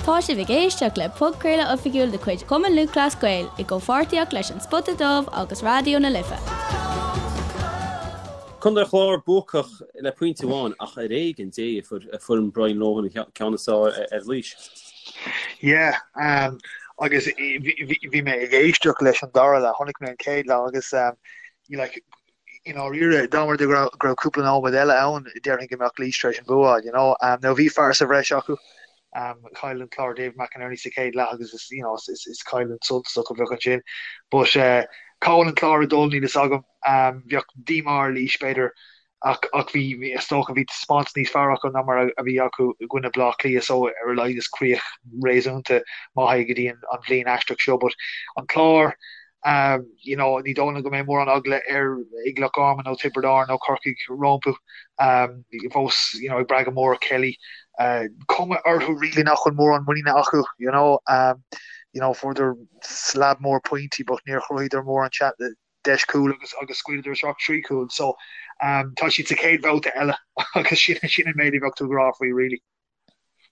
Tá sibh ag éisteacht le podchraoladh oifigiúil de chuid Chumann Lúthchleas Gael i gcomhpháirtíocht leis An Spota Dubh agus Raidió na Life. Contae an Chláir buacach le pointe amháin ach ar éigean Dé a fuair foireann Brian Lohan an ceann is fearr ar Laois. Yeah, agus bhí mé ag éisteacht leis an dara leath, chonaic mé an chéad leath agus like i ndáiríre, dá mba rud é go raibh cúpla nóiméad eile ann, déarfainn go mbeadh Laois tar éis an bua a fháil, you know. Now bhí fear sa bhreis acu, chaill an Clár David McInerney sa chéad leath agus is, you know, is, is cailliúint suntasach a bheadh ansin. But cá bhfuil an Clár ag dul, níl fhios agam. Bheadh díomá ar Laois, b'fhéidir, ach, ach bhí, is dócha, bhí taispeántas níos fearr acu ná mar a bhí acu i gcoinne Bleá Cliath so ar a laghad is críoch réasúnta maith é go dtí an, an bhliain aisteach seo. But an Clár, You know, ní dóigh liom go mbeidh mórán eagla ar ag Loch Garman nó Tiobraid Árann nó Corcaigh rompu. Fós, you know, ag brath go mór ar Kelly. Cuma orthu really nach bhfuil mórán muiníne acu, you know. You know, fuaireadar slab mór pointí but níor chruthaíodar mórán deis cúil agus agus scaoileadar isteach 3 chúl. So, tá siad sa chéad bhabhta eile agus sin sin an méid a bheadh tú ag rá faoi really.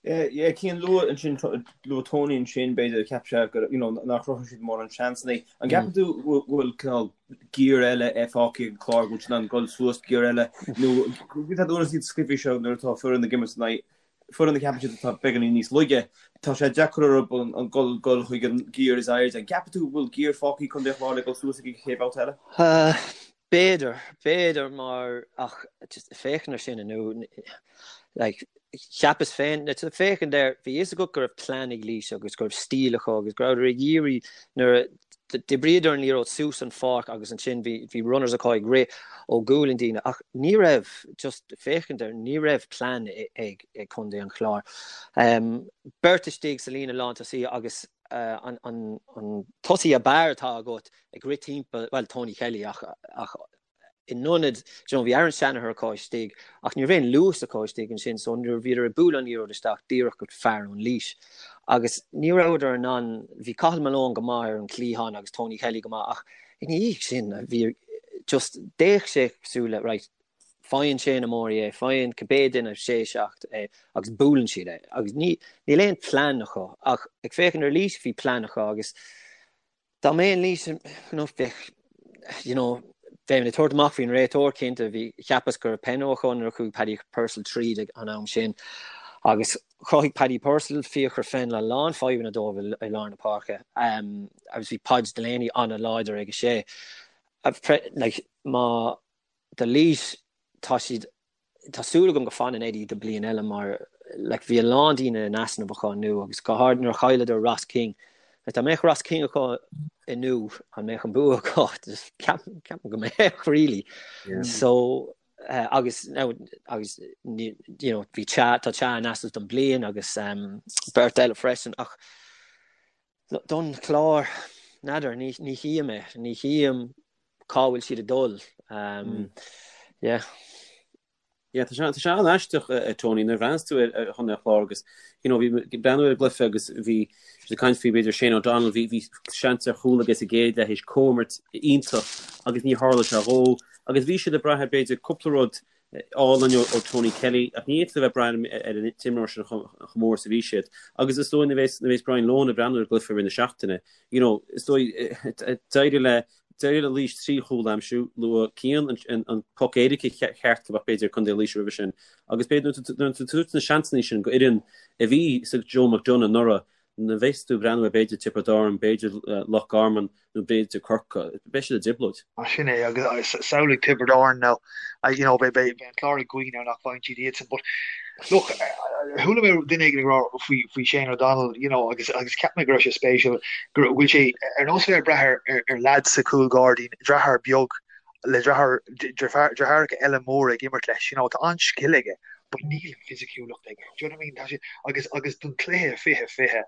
Yeah, Cian, luaigh ansin, luaigh Tony ansin, b'fhéidir, cheap sé go, you know, nár chruthaigh siad mórán seansanna. An gceapann tú go bhfuil cineál giar eile fágtha ag an Chlár, go bhfuil siad in ann dul suas giar eile, nó tá nuair is iad sna cluichí seo nuair atá foireann ag imirt in aghaidh foireann a cheapann siad atá beagáinín níos laige, tá sé deacair orthu an dul dul chuig an giar is airde. An gceapann tú go bhfuil giar fágtha ag Contae an Chláir le dul suas ag an chéad bhabhta eile? B'fhéidir, b'fhéidir mar ach just féachaint ar sin inniu, like, cheapas féin, now to féachaint air, bhí fhios agat go raibh plean ag Laois agus go raibh stíl acu agus go rabhadar ag iarraidh nuair a d'oibríodar an liathróid suas an pháirc agus ansin bhí, bhí runners acu ag rith ó ghualainn daoine ach ní raibh, just féachaint air, ní raibh plean ag, ag Contae an Chláir. Um, beirt istigh sa líne lántosaí agus uh, an, an, an tosaí ab fhearr atá agat ag rith timpeall, bhuel, Tony Kelly ach, ach in ionad, you know, bhí Aaron Shanagher acu istigh ach ní raibh aon luas acu istigh ansin so nuair a bhíodar ag bualadh an liathróid isteach díreach go fear ón Laois. Agus ní rabhadar in ann, bhí Cathal Malone go maith ar an chliathán agus Tony Kelly go maith ach ina dhiaidh sin bhí just d'fhéach sé cosúil le right, faigheann Shane Morey é, faigheann cibé duine sé 7 é agus buaileann siad é agus ní, níl aon plean acu ach ag féachaint ar Laois bhí plean acu agus Dá mbeinn Laois, you know, bheadh, you know, bheinn ag tabhairt amach faoin réiteoir, cinnte. Bhí, cheapas go raibh peno acu nuair a chuaigh Paddy Purcell tríd ag an am sin. Agus chruthaigh Paddy Purcell, Fiachra Fennell a lán fadhbanna dóibh i lár na páirce. Um, agus bhí Podge Delaney an-láidir ag a sé. Like, má do Laois, tá siad Tá súil agam go fanann Eddie do bliain eile mar like bhí a lán daoine in easnamh acu inniu agus go háirid nuair a chailleadar Ross King. Like, dá mbeadh Ross King acu inniu an mbeadh an bua acu? Just ceapaim ceapaim go mbeadh really. Yeah. So uh, agus now agus you know bhí Cha tá Cha in easnamh don bliain agus um, beirt eile freisin ach don Chlár n'fheadar ní ní chím é ní chím cá bhfuil siad ag dul. Yeah. Yeah, tá sé tá sé an-aisteach a Tony nuair a bhreathnaíos tú ar ar Chontae an Chláir agus you know bhí ag breathnú ar an gcluiche agus bhí siad ag caint faoi b'fhéidir Shane O'Donnell bhí bhí seans ar chúl aige sa gcéad leath théis comhimirt iontach agus ní tharla sé dhó agus bhí siad ag brath ar b'fhéidir cúpla rud álainn ó Tony Kelly ach ní fhéadfaí a bheith ag brath ar an t-imreoir sin chomh mór is a bhí siad agus is dóigh nuair a bheas nuair a bheas Brian Lohan ag breathnú ar an gcluiche i rith na seachtaine you know is dóigh d'éirigh le D'éirigh le Laois 3 chúl a aimsiú, luaigh Cian an poc éirice cheart a bheadh b'fhéidir ag Contae Laoise roimhe sin agus b'fhéidir nuair atá tú ag tabhairt na seansanna sin go fhoireann a bhí sa Joe McDonagh anuraidh, nuair a bheas tú ag breathnú ar b'fhéidir Tiobraid Árann, b'fhéidir Loch Garman nó b'fhéidir Corcaigh, beidh siad i dtrioblóid. Sin é agus samhlaigh Tiobraid Árann now, you know, beidh an Clár ag guí now nach bhfaigheann siad iadsan but look, chuala mé duine éigin ag rá faoi faoi Shane O'Donnell, you know, agus agus cheap mé go raibh sé spéisiúil go bhfuil sé ar nós bheith ag brath ar ar ar leaid sa chúl gairdín, deartháir beag le deartháir deartháireacha eile móra ag imirt leis, you know, tá an-scil aige but níl an fisiciúlacht aige. Do you know what I mean? Tá sé agus agus don chluiche 20 20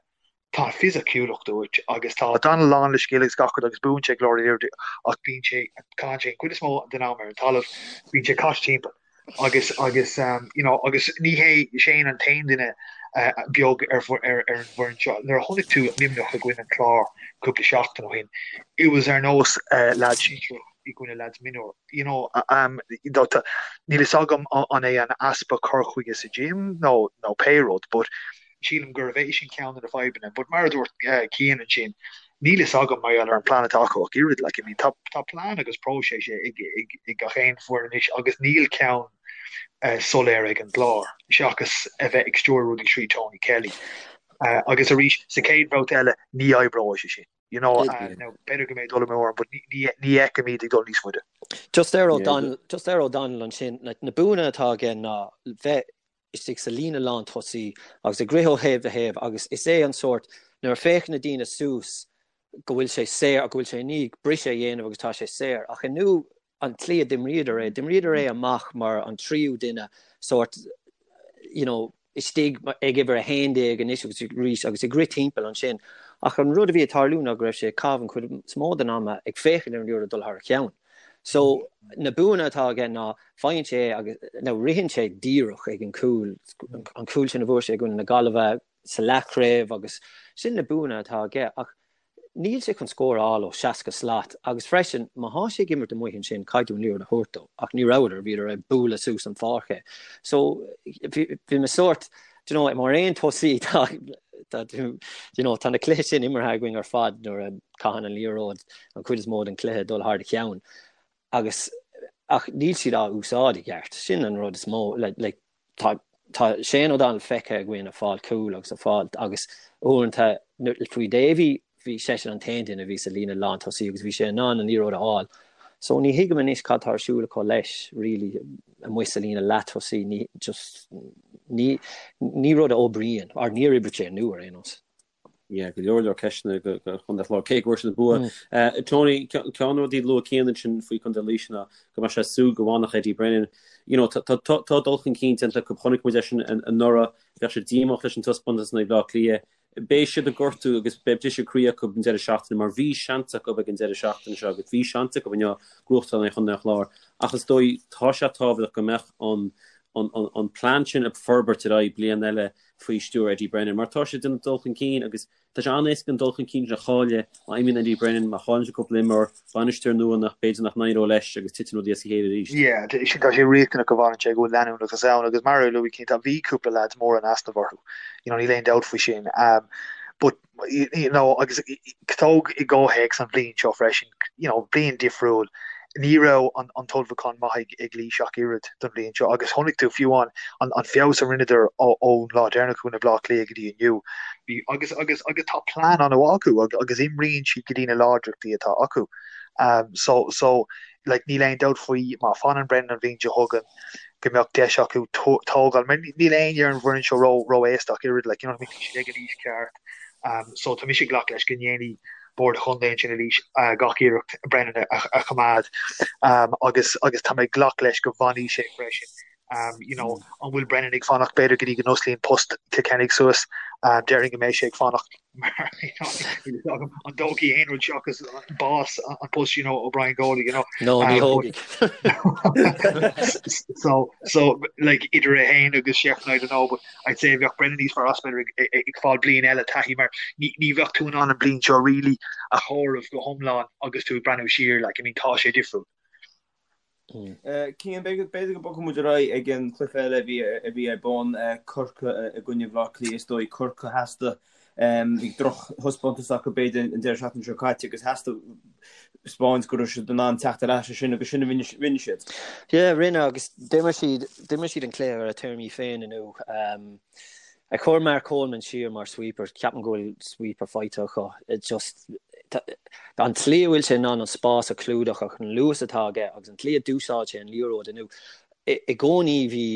Tá fisiciúlacht uait agus tá O'Donnell lán le scil agus gach rud agus buann sé go leor liathróidí ach bíonn sé, caitheann sé an chuid is mó den am ar an talamh, bíonn sé caite timpeall agus agus you know agus ní hé Shane an t-aon duine beag ar ar ar an bhfoireann seo. Nuair a chonaic tú Luimneach i gcoinne an Chláir cúpla seachtain ó shin, it was ar nós leaids sinsearach i gcoinne leaids mionúir. You know, níl fhios agam an é an easpa cur chuige sa gym nó nó pé rud but. Sílim gurbh é sin ceann de na fadhbanna. But mar a dúirt Cian ansin, níl fhios agam mar gheall ar an plean atá acu ach oiread. Like, I mean, tá, tá plean agus próiseas ag, ag, ag gach aon foireann anois agus níl ceann soiléir ag an gClár, seachas a bheith ag stiúradh rudaí trí Tony Kelly. Agus arís, sa chéad bhabhta eile, ní oibreoidh sé sin. You know, now, b'fhéidir go mbeidh dul amú orm, but ní, ní, ní fheicim iad ag dul níos faide. Just ar O'Donnell, just ar O'Donnell ansin, like, na buanna atá aige ná bheith istigh sa líne lán tosaí agus ag rith ó thaobh go thaobh agus is é an sórt nuair a féachann na daoine suas go bhfuil sé saor, go bhfuil sé i ndiaidh briseadh a dhéanamh agus tá sé saor. Ach inniu an tslí a d'imríodar é, d'imríodar é amach mar an tríú duine sórt, you know, istigh ag uimhir 11 anois agus arís agus ag rith timpeall ansin. Ach an rud a bhí ag tarlú ná go raibh sé ag caitheamh an chuid is mó den ama ag féachaint ar an liathróid ag dul thar a cheann. So na buanna atá aige ná faigheann sé é agus now ritheann sé díreach ag an cúl, an cúl sin a bhfuair sé i gcoinne na Gaillimhe sa leathchraobh agus sin na buanna atá aige ach níl sé chun scór a fháil ó 60 slat agus freisin má thá sé ag imirt amuigh ansin caithfidh tú an liathróid a thabhairt dó ach ní rabhadar, bhíodar ag bualadh suas an pháirc é. So bhí mé sórt, do you know, mar aon tosaí tá tá do you know, tá na cluichí sin imeartha againn ar fad nuair a caitheann an liathróid an chuid is mó den chluiche dul thar do cheann agus ach níl siad á úsáid i gceart. Sin an rud is mó like, like, tá tá Shane O'Donnell feicthe againn ag fáil cúl agus ag fáil agus uaireanta faoi Davy bhí seisean an t-aon duine a bhí sa líne lán tosaí agus bhí sé in ann an liathróid a fháil. So ní thuigim anois cad tá ar siúl acu leis really amuigh sa líne leath tosaí ní just ní ní rud a oibríonn or níor oibrigh sé inniu ar aon nós. Yeah, go leor leor ceisteanna do Chontae an Chláir, cé go bhfuair siad an bua. Tony, ceann de na rudaí a luaigh Cian ansin faoi Chontae Laoise ná go mbeadh sé ag súil go bhfanfadh Eddie Brennan. You know, tá tá dul chun cinn déanta acu, chonaic muid é sin anuraidh, bheadh siad díomách leis an taispeántas in aghaidh Bhaile Átha Cliath. Beidh siad ag gortú agus beidh briseadh croí acu an deireadh seachtaine mar bhí seans acu ag an deireadh seachtaine seo agus bhí seans acu inniu gnóthachtáil in aghaidh Chontae an Chláir ach is dóigh tá sé tábhachtach go mbeadh an an an plean sin ag forbairt ar aghaidh bliain eile faoi stiúir Eddie Brennan mar tá sé ag déanamh dul chun cinn agus tá sé an-éasca an dul chun cinn sin a chailleadh má imíonn Eddie Brennan, má chailleann sé cúpla imreoir, bainisteoir nua nach b'fhéidir nach n-éireoidh leis agus titeann rudaí as a chéile arís. Yeah, sin tá sé riachtanach go bhfanann sé, go bhfuil leanúnachas ann agus mar a luaigh Cian, tá bhí cúpla lads mór in easnamh orthu, you know, níl aon dabht faoi sin. Um, but you know, agus tóg i gcomhthéacs an bhliain seo freisin, you know, bliain difriúil, ní raibh an, an t-ullmhúchán maith ag, ag Laois ach oiread don bhliain seo agus chonaic tú fiú an, an, an feabhas a rinneadar ón lá deireanach i gcoinne Bhaile Átha Cliath go dtí inniu. Bhí, agus, agus, agus tá plean an-mhaith acu agus, agus imríonn siad go dtí na láidreachtaí atá acu. Um, so, so, like, níl aon dabht faoi má fanann Brennan an bhliain seo chugainn go mbeadh deis acu tógáil, mar níl éinne ar an bhfoireann seo ró, ró-aosta ach oiread, like, you know what I mean, tá siad ag an aois ceart. Um, so tá mise ag glacadh leis go ndéanfaidh bord an chontae ansin i Laois gach iarracht Brennan a, a choimeád um, agus, agus tá mé ag glacadh leis go bhfanfaidh sé freisin. Um, you know, an bhfuil Brennan ag fanacht b'fhéidir go dtí go n-osclaíonn post Kilkenny suas, um, déarfainn go mbeidh sé ag fanacht mar you know, níl a fhios agam an dtógfaidh aon rud seachas bás an post you know, ó Brian Goley, you know. No, ní thógfaidh. so, so, like, idir é féin agus Shefflin, I don't know, but I'd say bheadh Brennan níos fearr as b'fhéidir ag, ag, ag fáil bliain eile taithí mar ní, ní bheadh tú in ann an bliain seo really a chomhaireamh go hiomlán agus tú ag breathnú siar, like, I mean, tá sé difriúil. Cian, b'fhéidir go mbogfaidh muid ar aghaidh ag an chluiche eile a bhí ar bun, Corcaigh i gcoinne Bhaile Átha Cliath. Is dóigh Corcaigh theastaigh, bhí drochthaispeántas acu b'fhéidir an deireadh seachtaine seo caite agus theastaigh taispeáint go raibh siad in ann teacht ar ais as sin agus sin a rinne siad. Yeah, rinne agus d'imir siad, d'imir siad an cluiche ar a téarmaí féin inniu. Ag cur Mark Coleman siar mar sweeper, ceapaim go bhfuil sweeper faighte acu. It just, an tslí a bhfuil sé in ann an spás a chlúdach ach an luas atá aige agus an tslí a d'úsáid sé an liathróid inniu. I gcónaí bhí,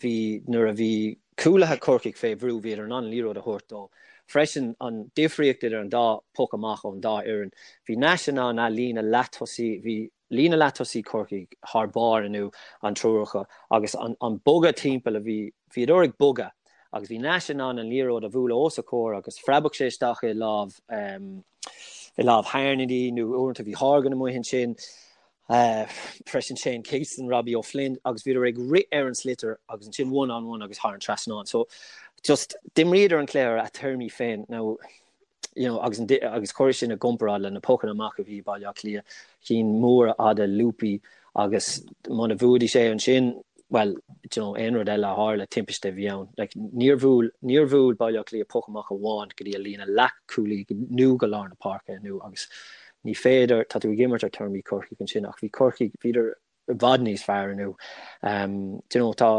bhí, nuair a bhí cúlaithe Chorcaigh fé bhrú, bhíodar in ann an liathróid a thabhairt dó. Freisin, an difríocht idir an dá poc amach ón dá fhoireann, bhí Nash in ann a líne leath-tosaí, bhí, Líne leath-tosaí Chorcaí thar barr inniu, an triúr acu, agus an bogadh timpeall a bhí, bhíodar ag bogadh agus bhí Nash in ann an liathróid a bhualadh os a chomhair agus phreabadh sé isteach i lámh, i lámh Harnedy nó uaireanta bhí Horgan amuigh ansin, freisin Shane Kingston, Robbie O'Flynn agus bhíodar ag rith ar an sliotar agus ansin one on one agus thar an trasnán. So just d'imríodar an cluiche ar a téarmaí féin. Now, you know, agus, agus cuir sin i gcomparáid le na pocanna amach a bhí i Baile Átha Cliath, cinn móra fhada lúpaí agus muna bhuafaidís é ansin. Bhuel, do you know, aon rud eile a tharla, timpiste a bhí ann. Like, níor bhuail, níor bhuail Baile Átha Cliath poc amach amháin go dtí a líne leathchúlaí nó go lár na páirce inniu agus ní féidir, tá tú ag imirt ar téarmaí Corcaigh ansin ach bhí Corcaigh, bhíodar i bhfad níos fearr inniu. Um, do you know, tá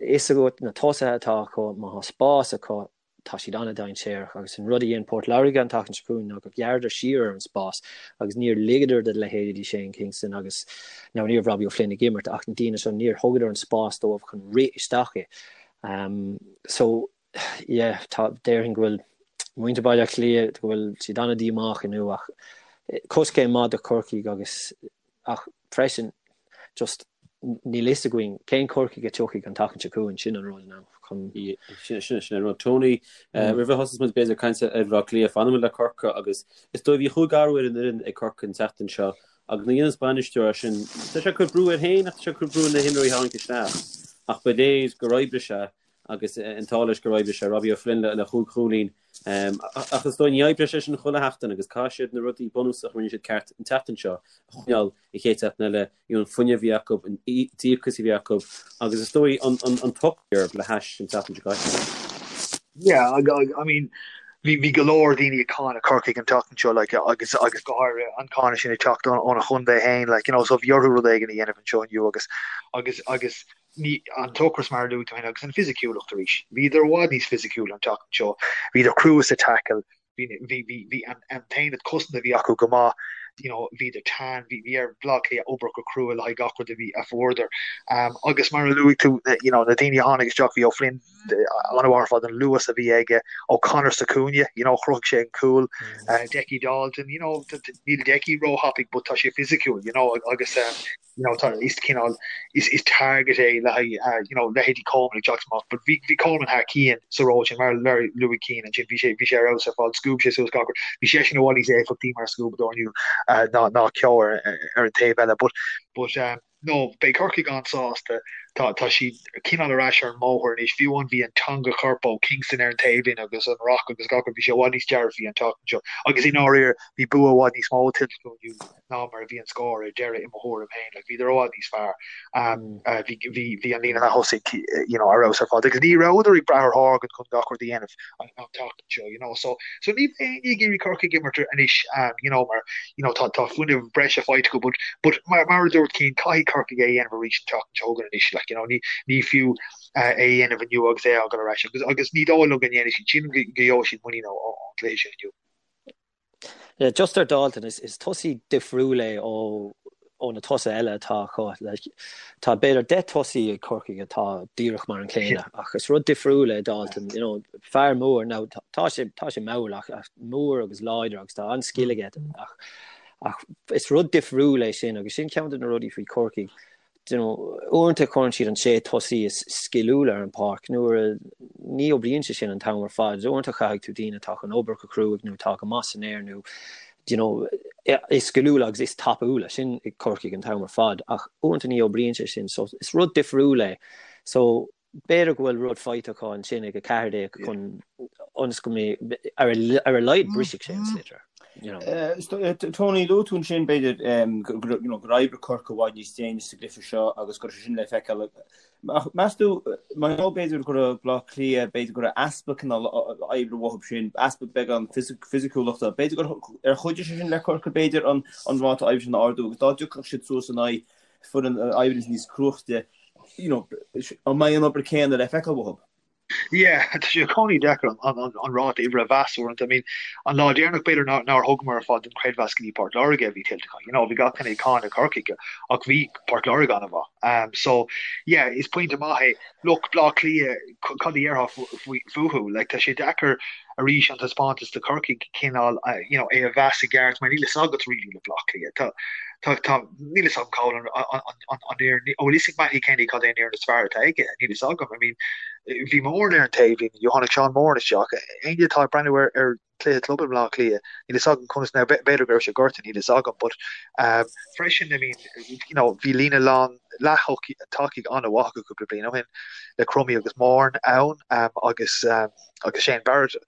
fhios agat na tosaithe atá acu, má tá spás acu, tá siad an-dainséarach agus an rud a dhein Port Láirge an tseachtain seo chugainn ná gur ghearradar siar ar an spás agus níor ligeadar do leithéidí Shane Kingston agus now ní raibh Robbie O'Flynn ag imirt ach na daoine seo níor thugadar an spás dóibh chun rith isteach i. Um, so yeah, tá déarfainn go bhfuil muintir Baile Átha Cliath go bhfuil siad an-díomách inniu ach eh, coiscéim maith do Chorcaigh agus ach freisin just níl fhios againn cén Corcaigh a tiocfaidh an tseachtain seo chugainn, sin an rud now chun. Sin sin an rud. Tony, roimh a thosós muid b'fhéidir ag caint ar Bhaile Átha Cliath, fanfaidh muid le Corcaigh agus is dóigh bhí chúig athrú ar an fhoireann ag Corcaigh an tseachtain seo agus nuair a dhéanas bainisteoir é sin, tá sé ag cur brú air féin ach tá sé ag cur brú ar na himreoirí a tháinig isteach ach ba léir gur oibrigh sé agus an t-ádh leis gur oibrigh sé, Robbie O'Flynn le chúig chúilín. Ach is dóigh ní oibreoidh sé sin chuile sheachtain agus caithfidh siad na rudaí bunúsacha a rinne siad ceart an tseachtain seo a choinneáil an chéad seachtain eile, you know, an fuinneamh a bhí acu, an díocas a bhí acu agus is dóigh an t-ocras le hais an tseachtain seo caite. Yeah, I mean, bhí bhí go leor daoine ag cáineadh Corcaigh an tseachtain seo like, agus agus go háirithe an cáineadh sin ag teacht óna chontae féin like, you know, so bhí orthu rud éigin a dhéanamh anseo inniu agus agus agus ní an t-ocras mar a luaigh tú féin agus an fisiciúlacht arís. Bhíodar i bhfad níos fisiciúla an tseachtain seo. Bhíodar crua sa tackle, bhí bhí bhí bhí an an t-aonad cosanta a bhí acu go maith, you know, bhíodar teann, bhí bhí ar Bhaile Átha Cliath obair go crua le haghaidh gach rud a bhí a fuaireadar. Um, agus mar a luaigh tú, you know, na daoine a tháinig isteach, bhí O'Flynn an-mhaith ar fad an luas a bhí aige, O'Connor sa chúinne, you know, chruthaigh sé an cúl, uh, Decky Dalton, you know, níl Decky róthapaidh but tá sé fisiciúil, you know, agus um, you know, tá is cineál is is target é le haghaidh uh, you know, leithéidí Coleman ag teacht amach, but bhí bhí Coleman thar cionn sa ról sin mar mar a luaigh Cian ansin bhí sé bhí sé ar fheabhas ar fad scuab sé suas gach rud bhí seisean i bhfad níos éifeachtaí mar scuabadóir inniu uh, ná ná Keogh ar, ar an taobh eile but but um, no beidh Corcaigh an-sásta tá tá siad cineál ar ais ar an mbóthar anois fiú amháin bhí an teanga choirp ó Kingston ar an taobhlíne agus an ruc agus gach rud bhí sé i bhfad níos dearfaí an tseachtain seo agus i ndáiríre bhí bua i bhfad níos mó tuillte acu inniu ná mar a bhí an scór ar deireadh i mo thuairim féin. Like, bhíodar i bhfad níos fearr. Um, uh, bhí, bhí, bhí an líne leath-thosaigh you know, ar fheabhas ar fad. Agus ní rabhadar ag brath ar Horgan chun gach rud a dhéanamh an, an tseachtain seo, you know. So, so ní bheidh éinne ag iarraidh Corcaigh imirt anois, um, you know, mar, you know, tá, tá fuinneamh breise faighte acu, but, but mar, mar a dúirt Cian, caithfidh Corcaigh é a dhéanamh arís an tseachtain seo chugainn anois, like, you know, ní, ní fiú uh, é a dhéanamh inniu agus é a fhágáil ar ais. Agus, agus ní dóigh liom go ndéanfaidh siad sin, go, go gheobhaidh siad muinín ó, ó, ón gcluiche sin inniu. Yeah, just ar Dalton, is, is tosaí difriúil é ó, ó na tosaithe eile atá acu. Like, tá b'fhéidir 10 tosaí ag Corcaigh atá díreach mar an chéanna, ach is rud difriúil é Dalton, you know, fear mór, now, tá, tá sé, tá sé mall ach, ach mór agus láidir agus tá an-scil aige, ach, ach is rud difriúil é sin agus sin ceann de na rudaí faoi Chorcaigh. you know, uaireanta cuireann siad an sé tosaí is sciliúla ar an páirc nuair a ní oibríonn sé sin an t-am ar fad. Uaireanta caithfidh tú daoine atá chun obair go cruaidh nó atá go maith san aer nó you know, is sciliúla agus is tapúla sin ag Corcaigh an t-am ar fad ach uaireanta ní oibríonn sé sin so is rud difriúil é. So b'fhéidir go bhfuil rud faighte acu ansin ag 14 chun ionas go mbeidh ar a laghad brisfidh sé an sliotar. You know. Eh, Tony, luaigh tú ansin b'fhéidir gur oibrigh Corcaigh i bhfad níos déine sa gcluiche seo agus go raibh sé sin le feiceáil. Ach meas tú, mar gheall b'fhéidir go raibh Baile Átha Cliath, b'fhéidir go raibh easpa cineál oibre uathu sin, easpa beagán fisiciúlachta, b'fhéidir gur ar chuidigh sé sin le Corcaigh b'fhéidir an ráta oibre sin a ardú agus dá dtiocfadh siad suas in aghaidh foireann a oibríonns níos cruaichte, you know, an mbeidh an obair céanna le feiceáil uathu? Yeah, tá sé i gcónaí deacair an, an, an ráta oibre a mheas uaireanta. I mean, an lá deireanach b'fhéidir nár, nár thugamar ar fad an creidmheas go dtí Port Láirge a bhí tuillte acu. You know, bhí gach duine ag cáineadh Corcaigh ach bhí Port Láirge an-mhaith. Um, so, yeah, is pointe maith é. Look, Bleá Cliath, cad a dhéarfá fúthu? Like, tá sé deacair arís an taispeántas do Chorcaigh cineál, you know, é a mheas i gceart mar níl fhios agat really le Bleá Cliath. Tá, tá, tá, níl fhios agam cá bhfuil an, an, an, an, an fhoireann, an bhfuil fhios ag Mattie Kenny cad é an fhoireann is fearr atá aige? Níl fhios agam. I mean, bhí Moran ar an taobhlíne, you tháinig Seán Moran isteach. Éinne atá ag breathnú ar, ar cluiche club i mBleá Cliath, níl fhios agam conas now, b'fhéidir go raibh sé gortaithe, níl fhios agam, but um, freisin, I mean, you know, bhí líne lán leath-tacaigh an-mhaith acu cúpla bliain ó shin le Crummey agus Moran ann um, agus, um, agus Shane Barrett.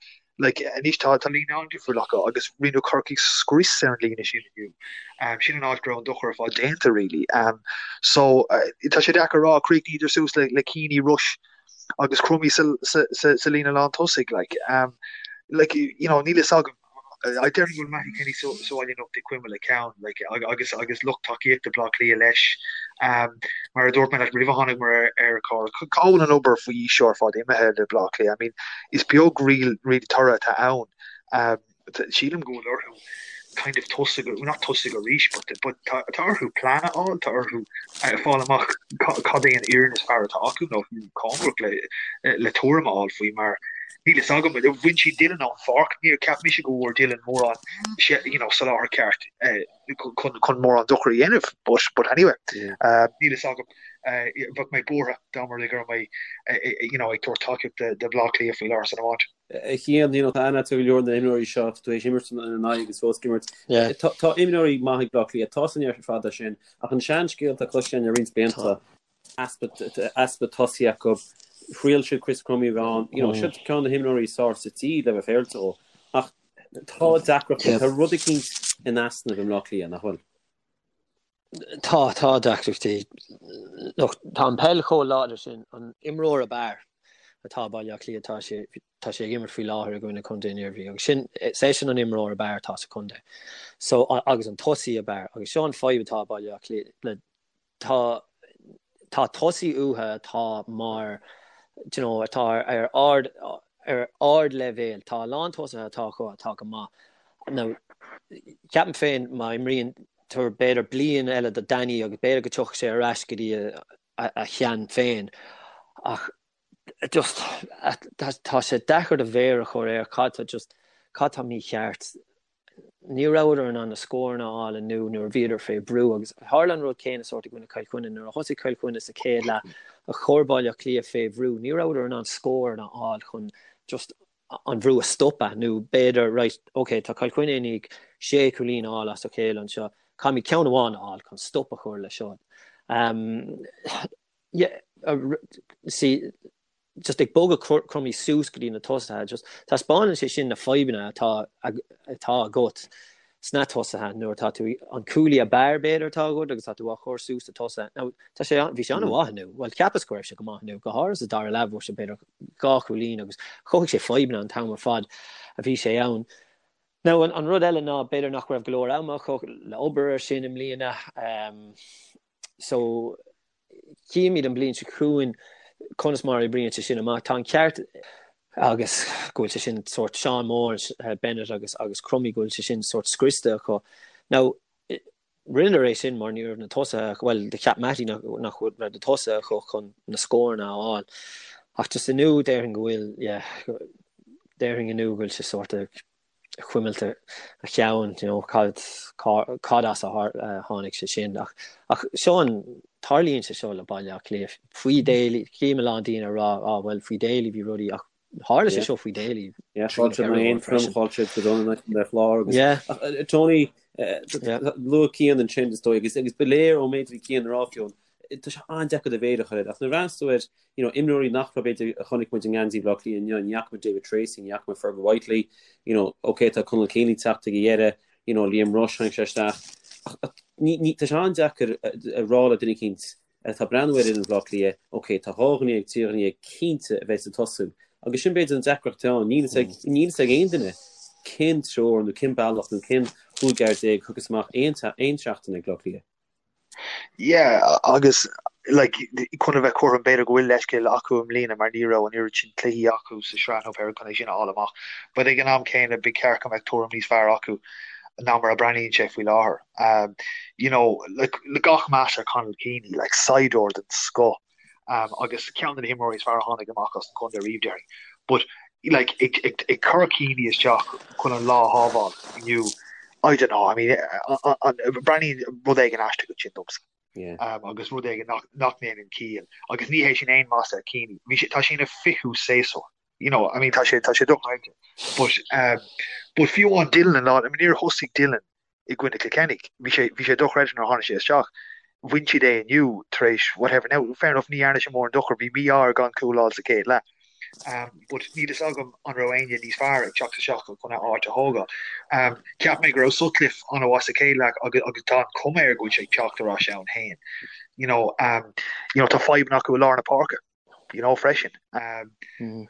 Like, anois tá tá líne an-difriúil acu agus rinne Corcaigh scrios ar an líne sin inniu. Um, sin an áit go raibh an dochar ar fad déanta really. Um, so uh, tá sé deacair a rá chríochnaíodar suas le, le Keaney, Rushe agus Crummey sa, sa, sa, sa líne lán tosaigh like. Um, like, you know, níl fhios agam I déarfainn go bhfuil Mattie Kenny sa bhaile anocht ag cuimilt a cheann like, agus agus lucht tacaíochta Bleá Cliath leis. Um, mar a dúirt mé leat roimh a tháinig muid ar ar chlár, cá bhfuil an obair faoi aois seo ar fad imithe le Bleá Cliath? I mean, is beag real, really toradh atá ann. Um, sílim go bhfuil orthu kind of tosaigh, not tosaigh arís, but, but tá, tá orthu plean a fháil, tá orthu uh, fáil amach cad é an fhoireann is fearr atá acu nó cóngarach le, le tuairim a fháil faoi mar Níl fhios agam, bhain siad Dylan ón pháirc, níor cheap mise go bhfuair Dylan mórán you know, soláthar ceart chun, chun mórán dochar a dhéanamh, but, but anyway, níl fhios agam, bheadh mé buartha dá mba rud é go raibh mé you know, ag tabhairt tacaíocht do Bhleá Cliath faoi láthair san iomáint. A Chian, you know, tá aithne agat ar go leor de na himreoirí seo, tá tú théis imirt ina n-aghaidh agus fós ag imirt. Tá, tá imreoirí maith ag Bleá Cliath, tá san ar fad é sin, ach an seanscéal atá cloiste againn le roinnt blianta, easpa tosaí acu. Thriail siad Chris Crummey a bheith ann. You know, seo ceann de na himreoirí is fearr sa tír le bheith féaráilte dhó. Ach tá deacrachtaí, tá rud eicínt in easnamh i mBleá Cliath, nach bhfuil? Tá, tá deacrachtaí. Look, tá an peil chomh láidir sin, an imreoir ab fhearr atá i Baile Átha Cliath, tá sé, tá sé ag imirt faoi láthair i gcoinne Contae an Iarmhí agus sin, is eisean an imreoir ab fhearr atá sa chontae. So, agus an tosaí ab fhearr. Agus seo an fadhb atá i Baile Átha Cliath le tá tá tosaí uathu atá mar do you know atá ar ard ar ardleibhéal. Tá a lán tosaithe atá acu atá go maith. Now ceapaim féin má imríonn tabhair b'fhéidir bliain eile do Danny agus b'fhéidir go dtiocfaidh sé ar ais go dtí a a shean féin ach just tá sé deacair do mhéar a chur air cad tá just cad tá mícheart. Ní rabhadar in ann na scóranna a fháil inniu nuair a bhíodar fé bhrú agus tharla an rud céanna sórt i gcoinne Chill Chainnigh. Nuair a thosaigh Cill Chainnigh sa chéad leath a chur Baile Átha Cliath fé bhrú, ní rabhadar in ann scóranna a fháil chun just an bhrú a stopadh nó b'fhéidir right, ok, tá Cill Chainnigh i ndiaidh sé chúilín a fháil as a chéile anseo, caithfimid ceann amháin a fháil chun stop a chur le seo. Um, yeah, uh, see, just ag bogadh Crummey suas go dtí na tosaithe, just taispeánann sé sin na fadhbanna atá atá agat sna tosaithe nuair atá tú an cúlaí ab fhearr b'fhéidir atá agat agus tá tú á chur suas sa tosaithe. Now tá sé bhí sé an-mhaith inniu, bhuel cheapas go raibh sé go maith inniu, go háirithe sa dara leath bhfuair sé b'fhéidir dhá chúilín agus chothaigh sé fadhbanna an t-am ar fad a bhí sé ann. Now an, an rud eile ná b'fhéidir nach raibh go leor ama acu le obair ar sin i mbliana um, so Chífimid an bhliain seo chugainn conas mar a oibríonn sé sin amach. Tá an ceart agus go bhfuil sé sin sórt Seán Moore, Bennett agus agus Crummey go bhfuil sé sin sórt scriosta acu. Now rinneadar é sin mar ní raibh na tosaithe, bhuel do cheap Mattie nach nach raibh na tosaithe acu chun na scóranna a fháil. Ach just inniu déarfainn go bhfuil, yeah, déarfainn inniu go bhfuil sé sórt chuimilt a cheann, you know, cad, cad as a tháinig sé sin. Ach, ach seo an, tarlaíonn sé seo le Baile Átha Cliath. Faoi Daly, chím a lán daoine ag rá, á, bhuel, faoi Daly bhí rudaí, ach tharla sé seo faoi Daly. Yeah, chaill siad Aontroim, chaill siad go dona le Clár agus, Yeah. ach, Tony, luaigh Cian ansin is dóigh, agus, agus ba léir ón méid a bhí Cian a rá fiú, tá sé an-deacair do mhéar a chur air, ach nuair a bhreathnaíos tú ar, you know, imreoirí nach raibh b'fhéidir a chonaic muid i ngeansaí Bhaile Átha Cliath inniu, ní fhaca muid David Treacy, ní fhaca muid Fergal Whitely, you know, ok tá Conal Keaney ag teacht ag a dheireadh, you know, Liam Rushe tháinig sé isteach, ach ní, ní, tá sé an-deacair a rá le duine eicínt atá ag breathnú ar fhoireann Bhaile Átha Cliath, ok tá 12 dhuine, 13 dhuine cinnte a bheidh ag tosú, agus sin b'fhéidir an deacracht atá ann, níl a fhios ag, níl a fhios ag aon duine cén treoir nó cén bealach nó cén chúigear déag a thiocfas amach aon, aon seachtain ag Bleá Cliath. Yeah, agus like, chun a bheith cothrom b'fhéidir go bhfuil leithscéal acu i mbliana mar ní raibh an oiread sin cluichí acu sa sraith nó pé chun é sin a fháil amach. But ag an am céanna ba cheart go mbeadh tuairim níos fearr acu ná mar a breathnaíonn sé faoi láthair. Um, you know, like, le gach meas ar Conal Keaney, like, saighdiúir den scoth. um, agus ceann de na himreoirí is fearr a tháinig amach as an chontae riamh déarfainn. But like, ag, ag, ag cur Keaney isteach chun an lá a shábháil inniu, I don't know, I mean, breathnaíonn rud éigin aisteach ansin domsa. Yeah. Um, agus rud éigin nach, nach ndéanann ciall. Agus ní hé sin aon mhasla ar Keaney. Bhí sé, tá sé ina fichiú séasúr. You know, I mean, tá sé, tá sé dochreidte. But, um, but fiú amháin Dylan an lá, I mean, níor thosaigh Dylan i gcoinne Chill Chainnigh. Bhí sé, bhí sé dochreidte nuair a tháinig sé isteach. Bhain siad é inniu tar éis whatever. Now, fair enough, ní dhearna sé mórán dochar, bhí mí-ádh air gan cúl a fháil sa chéad leath. But níl fhios agam an raibh éinne níos fearr ag teacht isteach chun a áit a thógáil. Cheap mé go raibh Sutcliffe an-mhaith sa chéad leath agus agus tá an chuma air go bhfuil sé ag teacht ar ais ann féin. You know, you know, tá fadhbanna acu i lár na páirce, you know, freisin.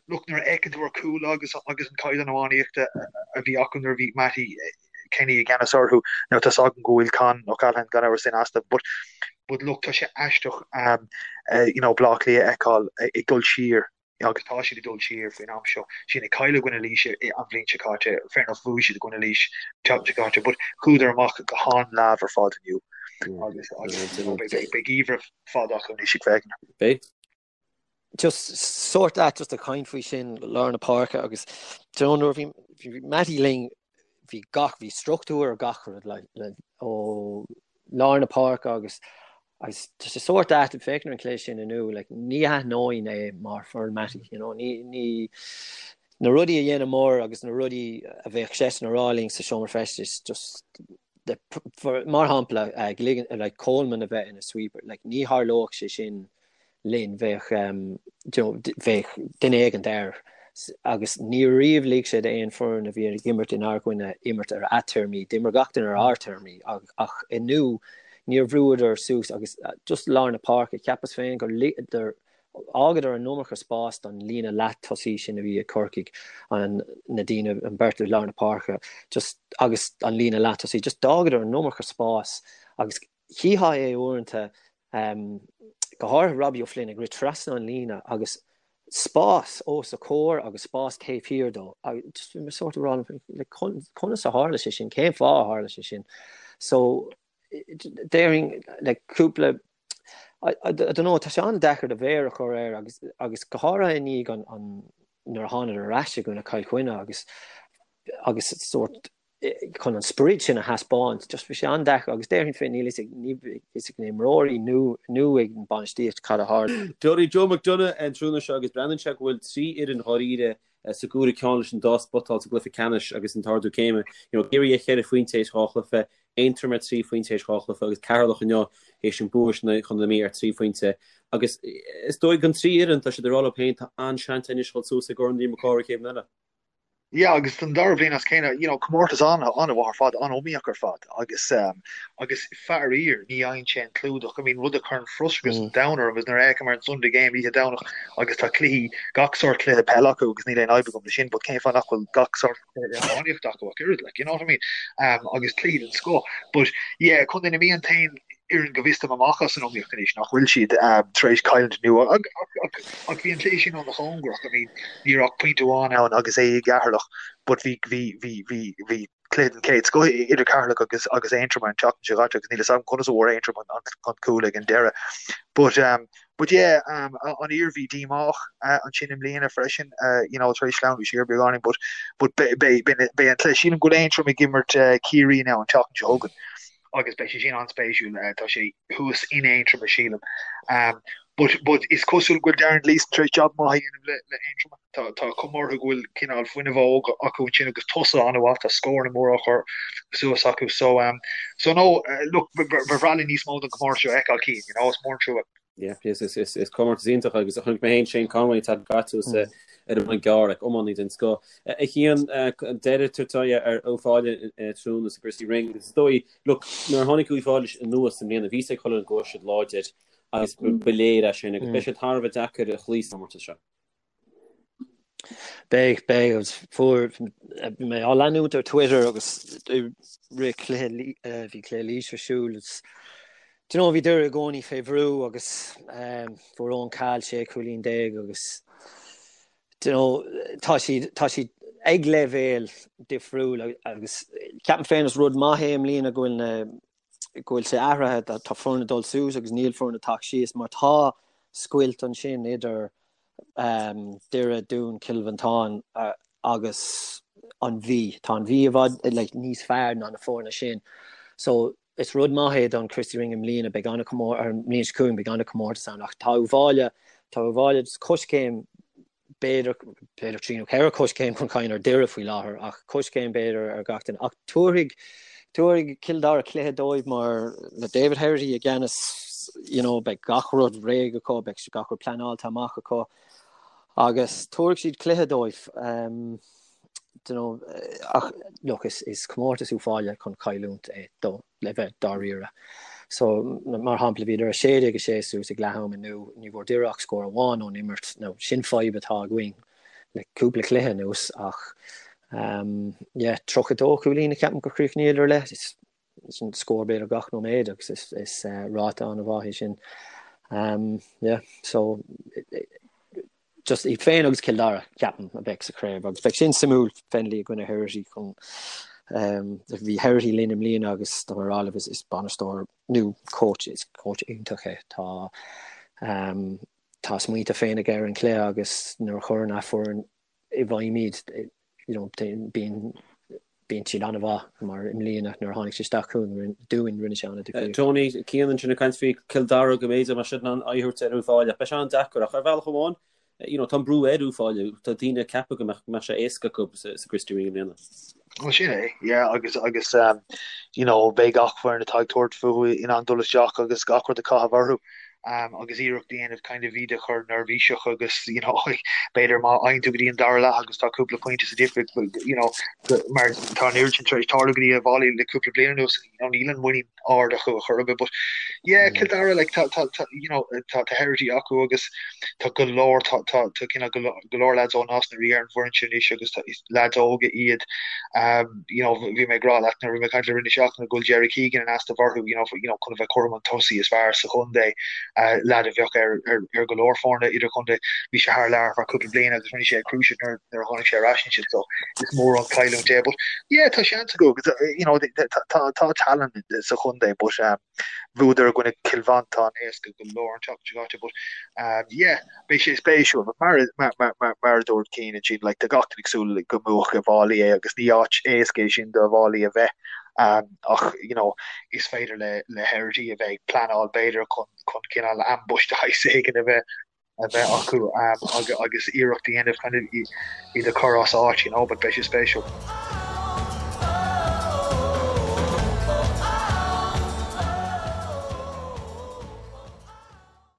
Look, nuair a fheiceann tú ar chúl agus agus an caighdeán iománaíochta a bhí acu nuair a bhí Mattie Kenny i gceannas orthu, now tá 's agam go bhfuil Con O'Callaghan gan amhras in easnamh, but but look, tá sé aisteach you know, Bleá Cliath a fheiceáil ag dul siar agus tá siad ag dul siar faoin am seo. Sin ag cailleadh i gcoinne Laoise an bhliain seo caite, fair enough bhuaigh siad i gcoinne Laois an tseachtain seo caite, but chuadar amach go han-leamh ar fad inniu agus agus you know, beidh beidh geimhreadh fada acu anois ag féachaint. Beidh. Just sórt ait just ag caint faoi sin lár na páirce agus do you know nuair a bhí bhí Mattie linn bhí gach bhí struchtúr ar gach rud like, le, ó lár na páirce agus Agus tá sé sórt ait ag féachaint ar an chluiche sin inniu, like, ní aithneoinn é mar foireann Mattie, you know, ní, ní, na rudaí a dhéanamar agus na rudaí a bheadh seisean a rá linn sa seomra feistis, just, the, for, mar shampla, uh, ligean, like, Coleman a bheith ina sweeper, like, ní tharlódh sé sin linn, bheadh, um, you know, bheadh duine éigint air agus ní riamh lig sé d'aon foireann a bhí ag imirt inár gcoinne imirt ar a téarmaí, d'imir gach duine ar ár téarmaí ach inniu níor bhrúadar suas agus just lár na páirce, cheapas féin gur fhágadar an iomarca spás don líne leath-tosaí sin a bhí ag Corcaigh, an, na daoine, an beirt i lár na páirce, just agus an líne leath-tosaí, just d'fhágadar an iomarca spás agus chífeá é uaireanta go háirithe Robbie O'Flynn ag rith trasna an líne agus spás os a chomhair agus spás taobh thiar dó. Just bhí mé sórt ag rá like, conas a tharla sé sin, cén fáth a tharla sé sin. So déarfainn like, cúpla I, I, I don't know, tá sé an-deacair do mhéar a chur air agus, agus go háirithe i ndiaidh an, an, nuair a thánadar ar ais i gcoinne Chill Chainnigh agus agus sórt chun an sprid sin a thaispeáint, just bhí sé an-deacair agus déarfainn féin níl fhios ag ní fhios ag na himreoirí nó nó ag an bainistíocht cad a tharla. Tony Joe McDonagh an tráthnóna seo agus breathnaíonn sé go bhfuil 3 fhoireann dháiríre sa gcúigiú ceann leis an dá spot sa gcluiche ceannais agus an t-ardú céime. You know, Ciarraí ar cheithre phointe théis dhá chluiche, Aontroim ar trí phointe théis dhá chluiche agus Ceatharlach inniu théis an bua sin chun na Mí ar trí phointe. Agus is dóigh don trí fhoireann, tá siad ag rá leo féin, tá an-seans anois dhul suas i gCorn Liam Mac Cárthaigh chéad bhliain eile. Yeah, agus don dara bliain as a chéile, you know, comórtas an-mhaith ar fad, an-iomaíoch ar fad, agus um, agus faraor ní fhaigheann sé an clúdach. I mean, rud a chuireann frustrachas an domhain orm is nuair a fhéachaim ar an Sunday Game oíche Domhnach agus tá cluichí, gach sórt cluiche peile acu agus níl aon fhadhb agam le sin, but cén fáth nach bhfuil gach sórt cluiche iománaíochta acu ach oiread, like, you know what I mean? Um, agus cluichí den scoth. But yeah, Contae na Mí an t-aon fhoireann go bhfios dom amach as an iomaíocht anois nach bhfuil siad tar éis cailliúint inniu ach bhí an cluiche sin an-chóngarach. I mean, ní raibh ach pointe amháin ann agus é i gCeatharlach but bhí bhí bhí bhí bhí cluiche den chéad scoth idir Ceatharlach agus agus Aontroim an tseachtain seo caite agus níl fhios agam conas a bhfuair Aontroim an, an, an cúl ag an deireadh. But um, but yeah, um, an Iarmhí díomách uh, ansin i mbliana freisin, uh, you know, tar éis sleamhnú siar beagáinín, but but beidh an cluiche sílim go bhfuil Aontroim ag imirt uh, Ciarraí now an tseachtain seo chugainn. agus beidh sé sin an-spéisiúil, tá sé thuas in Aontroim sílim. But but is cosúil go bhfuil Darren Gleeson tar éis jab maith a dhéanamh le le Aontroim. Tá tá cuma orthu go bhfuil cineál fuinneamh óg acu ansin agus tosaithe an-mhaith, tá scóranna móra á chur suas acu. So um so no look ba bhreá linn níos mó den chomórtas seo a fheiceáil Cian, you know, is mór an trua. Yeah, is, is, is, is comórtas iontach agus a chonaic mé féin Shane Conway an tseachtain seo caite ar an mBun Gearr ag iománaí den scoth. A Chian, deireadh tagtha ar Uíbh Fhailí tráthnóna sa Christy Ring. Is dóigh, look, nuair a tháinig Uíbh Fhailí anuas i mbliana, bhí a fhios ag chuile dhuine go raibh siad láidir agus ba léir é sin agus beidh siad thar a bheith deacair a chloí sa chomórtas seo. Beidh, beidh, agus fuair, bhí mé á leanúint ar Twitter agus i rith cluiche, bhí cluiche Laois ar siúl agus do you know bhí Doire i gcónaí fé bhrú agus fuair Eoin Cahill 16 cúilín agus do you know tá siad, tá siad ag leibhéal difriúil agus ceapaim féin is rud maith é i mbliana go bhfuil na, go bhfuil sé athraithe, tá foirne ag dul suas agus níl foirne ag teacht síos mar tá scoilt ansin idir Doire, Dún, Cill Mhantáin agus an Mhí. Tá an Mhí i bhfad like, níos fearr ná na foirne sin. So is rud maith é don Christy Ring i mbliana, beidh an-chomór ar an mbliain seo chugainn beidh an-chomórtas ann ach tá Uíbh Fhailí, tá Uíbh Fhailí coiscéim b'fhéidir, b'fhéidir trí nó ceithre choiscéim chun cinn ar Doire faoi láthair, ach coiscéim b'fhéidir ar gach duine. Ach tabharfaidh, tabharfaidh Cill Dara cluiche dóibh mar le David Herity i gceannas, you know, beidh gach rud réidh acu, beidh gach rud pleanáilte amach acu. Agus tabharfaidh siad cluiche dóibh. You know, ach look, is, is comórtas Uíbh Fhailí chun cailliúint é do, le bheith dáiríre. So, mar shampla, bhíodar 16-6 suas ag leath am inniu, ní bhfuair Doire ach scór amháin ón imirt. Now, sin fadhb atá againn le cúpla cluiche anuas ach um, yeah, 32 cúilín a ceapaim gur chríochnaíodar le. Is, sin scór b'fhéidir gach nóiméad agus is, is uh, ráta an-mhaith é sin. Um, yeah, so just iad féin agus Cill Dara ceapaim a bheidh sa chraobh agus beidh sin suimiúil Fennelly i gcoinne Herity chun um, bhí Herity linn i mbliana agus tá mé ag rá libh is, is bainisteoir nó coach is coach iontach é tá um, tá a smaointe féin aige ar an chluiche agus nuair a chuireann a foireann i bhfeidhm iad you know, bíonn bíonn siad an-mhaith mar i mbliana nuair a tháinig sé isteach chugainn dúinn rinne sé an-difríocht. Tony, Cian ansin ag caint faoi Cill Dara go mb'fhéidir mbeadh siad in ann aghaidh a thabhairt ar Uíbh Fhailí ach beidh sé an-deacair ach ar bhealach amháin you know, tá an brú ar Uíbh Fhailí, tá daoine ag ceapadh go mbeadh go mbeadh sé éasca acu sa, sa Christy Ring i mbliana. Well sin é, yeah, agus agus um, you know, beidh gach foireann atá ag tabhairt fúthu in ann dul isteach agus gach rud a chaitheamh orthu. um, agus iarracht a dhéanamh kind of iad a chur neirbhíseach agus you know, b'fhéidir má fhaigheann tú go dtí an dara leath agus tá cúpla pointe sa difríocht you know, mar tá an oiread sin tar éis tarlú go dtí Uíbh Fhailí le cúpla bliain anuas you know, níl an muinín ard acu a chur but yeah, Cill Dara like, tá, tá, tá, you know, tá, tá Herity acu agus tá go leor tá, tá, tá cineál go go leor lads ó Nás na Rí ar an bhfoireann sin anois agus tá, is lads óga iad um, you know, bhí mé ag rá leat nuair a bhí mé ag caint le roinnt seachtaine go bhfuil Jerry Keegan in easnamh orthu, you know, you know, chun a bheith cothrom an tosaí is fearr sa chontae, uh, lad a bheadh ar, ar, ar go leor foirne idirchontae. Bhí sé thar lear ar feadh cúpla bliain agus rinne sé a cruciate nuair, nuair a tháinig sé ar ais ansin, so is mór an chailliúint é. But yeah, tá seans acu, agus, uh, you know, tá, tá, tá talent sa chontae, but um, bhuadar i gcoinne Cill Mhantáin éasca go leor an tseachtain seo caite, but um, yeah, Beidh sé spéisiúil, but mar mar mar mar mar a dúirt Cian ansin, like, tá gach duine ag súil go mbuafadh Uíbh Fhailí é agus ní áit éasca é sin do Uíbh Fhailí a bheith um, ach you know, is féidir le le Herity a bheith ag pleanáil b'fhéidir chun chun cineál ambush de shaghas éigin a bheith a bheith acu um, agus, agus iarracht a dhéanamh kind of iad a chur as áit, you know, but beidh sé spéisiúil.